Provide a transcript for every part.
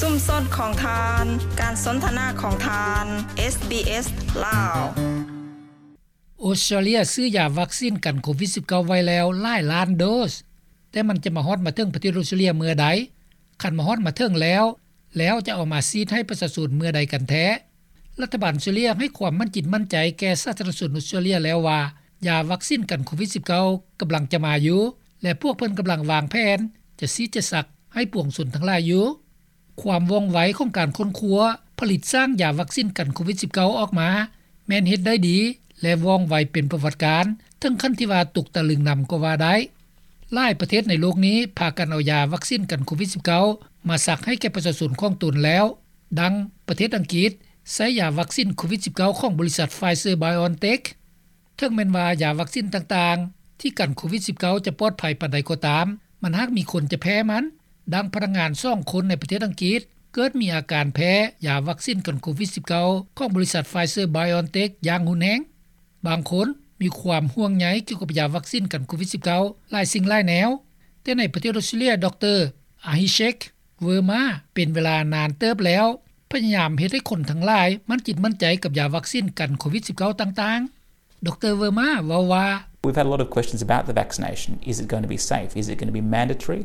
ຊຸມຊົນຂອງທ່ານ, ການສົນທະນາຂອງທ່ານ, ເອສບີເອສ ລາວ. ອົດສະຕຣາເລຍຊື້ຢາວັກຊິນກັນໂຄວິດສິບເກົ້າໄວ້ແລ້ວຫຼາຍລ້ານໂດສ, ແຕ່ມັນຈະມາຮອດມາເຖິງປະເທດອົດສະຕຣາເລຍເມື່ອໃດ? ຄັນມາຮອດມາເຖິງແລ້ວ, ແລ້ວຈະເອົາມາສີດໃຫ້ປະຊາຊົນເມື່ອໃດກັນແທ້? ລັດຖະບານອົດສະຕຣາເລຍໃຫ້ຄວາມໝັ້ນຈິດໝັ້ນໃຈແກ່ສາທາລະນະຊົນອົດສະຕຣາເລຍແລ້ວວ່າ ຢາວັກຊິນກັນໂຄວິດສິບເກົ້າກຳລັງຈະມາຢູ່ ແລະ ພວກເພິ່ນກຳລັງວາງແຜນຈະສີດຈະສັກໃຫ້ປວງຊົນທັງຫຼາຍຢູ່. ຄວາມວ່ອງໄວຂອງການຄົ້ນຄວ້າ, ຜະລິດສ້າງຢາວັກຊິນກັນໂຄວິດສິບເກົ້າອອກມາ ແມ່ນເຮັດໄດ້ດີ ແລະ ວ່ອງໄວເປັນປະຫວັດການ, ເຖິງຂັ້ນທີ່ວ່າຕົກຕະລຶງນຳກໍວ່າໄດ້. ຫຼາຍປະເທດໃນໂລກນີ້ພາກັນເອົາຢາວັກຊິນກັນໂຄວິດສິບເກົ້າມາສັກໃຫ້ແກ່ປະຊາຊົນຂອງຕົນແລ້ວ, ດັ່ງປະເທດອັງກິດໃຊ້ຢາວັກຊິນໂຄວິດສິບເກົ້າຂອງບໍລິສັດ Pfizer BioNTech. ເຖິງແມ່ນວ່າຢາວັກຊິນຕ່າງໆທີ່ກັນໂຄວິດສິບເກົ້າຈະປອດໄພປານໃດກໍຕາມ, ມັນຫາກມີຄົນຈະແພ້ມັນ, ດັ່ງພະນັກງານສອງຄົນໃນປະເທດອັງກິດ ເກີດມີອາການແພ້ຢາວັກຊິນກັນໂຄວິດສິບເກົ້າຂອງບໍລິສັດ Pfizer BioNTech ຢ່າງຮຸນແຮງ. ບາງຄົນມີຄວາມຫ່ວງໃຍກ່ຽວກັບຢາວັກຊິນກັນໂຄວິດສິບເກົ້າຫຼາຍສິ່ງຫຼາຍແນວ, ແຕ່ໃນປະເທດອົດສະຕຣາເລຍ ດຣ. Abhishek Verma ເປັນເວລານານເຕີບແລ້ວ ພະຍາຍາມເຮັດໃຫ້ຄົນທັງຫຼາຍໝັ້ນຈິດໝັ້ນໃຈກັບຢາວັກຊິນກັນໂຄວິດສິບເກົ້າຕ່າງໆ. ດຣ. Verma ເວົ້າວ່າ We've had a lot of questions about the vaccination. Is it going to be safe? Is it going to be mandatory?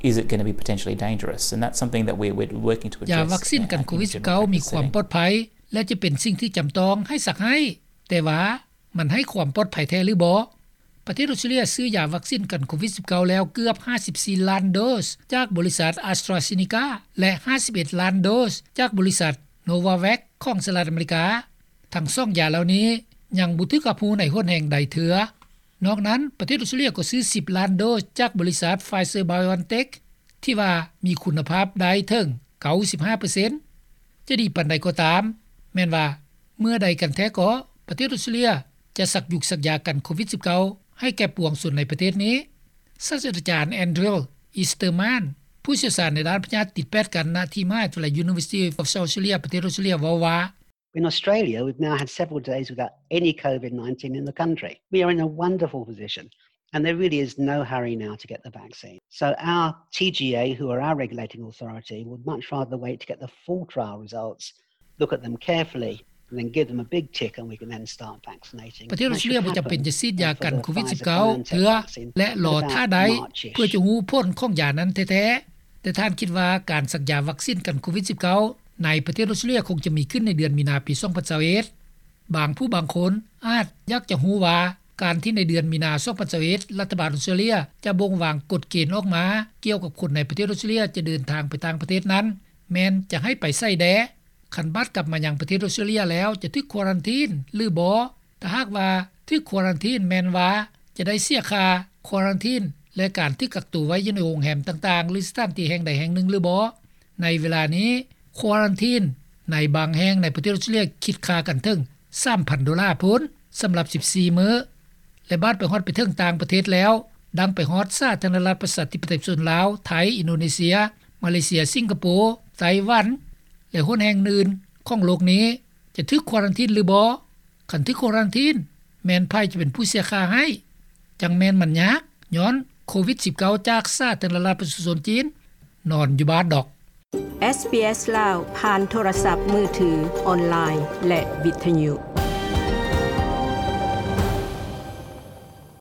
Is it going to be potentially dangerous? And that's something that we're, we're working to address. ຢາວັກຊິນກັນໂຄວິດສິບເກົ້າມີຄວາມປອດໄພ ແລະ ຈະເປັນສິ່ງທີ່ຈຳຕ້ອງໃຫ້ສັກໃຫ້, ແຕ່ວ່າມັນໃຫ້ຄວາມປອດໄພແທ້ຫຼືບໍ່? ປະເທດອົດສະຕຣາເລຍຊື້ຢາວັກຊິນກັນໂຄວິດສິບເກົ້າແລ້ວເກືອບຫ້າສິບສີ່ລ້ານໂດສຈາກບໍລິສັດ AstraZeneca ແລະ ຫ້າສິບເອັດລ້ານໂດສຈາກບໍລິສັດ Novavax ຂອງສະຫະລັດອາເມລິກາ. ທັງສອງຢາເຫຼົ່ານີ້ຍັງບໍ່ຖືກຮັບຮູ້ໃນຫົນແຫ່ງໃດເທື່ອ. ນອກນັ້ນ, ປະເທດອົດສະຕຣາເລຍກໍຊື້ສິບລ້ານໂດສຈາກບໍລິສັດ Pfizer BioNTech ທີ່ວ່າມີຄຸນນະພາບໄດ້ເຖິງເກົ້າສິບຫ້າເປີເຊັນ. ຈະດີປານໃດກໍຕາມ, ແມ່ນວ່າເມື່ອໃດກັນແທ້ກໍປະເທດອົດສະຕຣາເລຍຈະສັກຢຸກສັກຢາກັນໂຄວິດສິບເກົ້າໃຫ້ແກ່ປວງຊົນໃນປະເທດນີ້? ສາດສະດາຈານ Andrew Easterman ຜູ້ຊ່ຽວຊານໃນດ້ານພະຍາດຕິດແປດກັນນະທີ່ມະຫາວິທະຍາໄລ University of South Australia ປະເທດອົດສະຕຣາເລຍ ເວົ້າວ່າ In Australia, we've now had several days without any COVID nineteen in the country. We are in a wonderful position, and there really is no hurry now to get the vaccine. So our T G A, who are our regulating authority, would much rather wait to get the full trial results, look at them carefully, and then give them a big tick, and we can then start vaccinating. ປະເທດອົດສະຕຣາເລຍບໍ່ຈຳເປັນຈະສີດຢາກັນໂຄວິດສິບເກົ້າເທື່ອ ແລະ ລໍຖ້າໄດ້ເພື່ອຈະຮູ້ຜົນຂອງຢານັ້ນແທ້ໆ. ແຕ່ທ່ານຄິດວ່າການສັກຢາວັກຊິນກັນໂຄວິດສິບເກົ້າໃນປະເທດອົດສະຕຣາເລຍຄົງຈະມີຂຶ້ນໃນເດືອນມີນາປີສອງພັນຊາວເອັດ. ບາງຜູ້ບາງຄົນອາດຢາກຈະຮູ້ວ່າ ການທີ່ໃນເດືອນມີນາສອງພັນຊາວເອັດ ລັດຖະບານອົດສະຕຣາເລຍຈະບົ່ງວາງກົດເກນອອກມາກ່ຽວກັບຄົນໃນປະເທດອົດສະຕຣາເລຍຈະເດີນທາງໄປຕ່າງປະເທດນັ້ນ ແມ່ນຈະໃຫ້ໄປໃສແດ່? ຄັນບາດກັບມາຍັງປະເທດອົດສະຕຣາເລຍແລ້ວຈະຖືກຄວາຣັນທີນຫຼືບໍ່? ຖ້າຫາກວ່າຖືກຄວາຣັນທີນ ແມ່ນວ່າຈະໄດ້ເສຍຄ່າຄວາຣັນທີນ ແລະ ການຖືກກັກຕົວໄວ້ຢູ່ໃນໂຮງແຮມຕ່າງໆ ຫຼື ສະຖານທີ່ແຫ່ງໃດແຫ່ງໜຶ່ງຫຼືບໍ່? ໃນເວລານີ້ ຄວາຣັນທີນໃນບາງແຫ່ງໃນປະເທດອົດສະຕຣາເລຍຄິດຄ່າກັນເຖິງສາມພັນໂດລາພຸ້ນ ສຳລັບສິບສີ່ມື້ ແລະ ບາດໄປຮອດໄປເຖິງຕ່າງປະເທດແລ້ວ ດັ່ງໄປຮອດສາທາລະນະລັດປະຊາທິປະໄຕປະຊາຊົນລາວ, ໄທ, ອິນໂດເນເຊຍ, ມາເລເຊຍ, ສິງກະໂປ, ໄຕ້ຫວັນ ແລະ ຫົນແຫ່ງອື່ນຂອງໂລກນີ້ ຈະຖືກຄວາຣັນທີນຫຼືບໍ່? ຄັນຖືກຄວາຣັນທີນ ແມ່ນໃຜຈະເປັນຜູ້ເສຍຄ່າໃຫ້? ຈັ່ງແມ່ນມັນຍາກ ຍ້ອນໂຄວິດສິບເກົ້າຈາກສາທາລະນະລັດປະຊາຊົນຈີນ ນອນຢູ່ບ້ານດອກ. ເອສບີເອສ ລາວ ຜ່ານໂທລະສັບມືຖື, ອອນລາຍ ແລະ ວິທະຍຸ.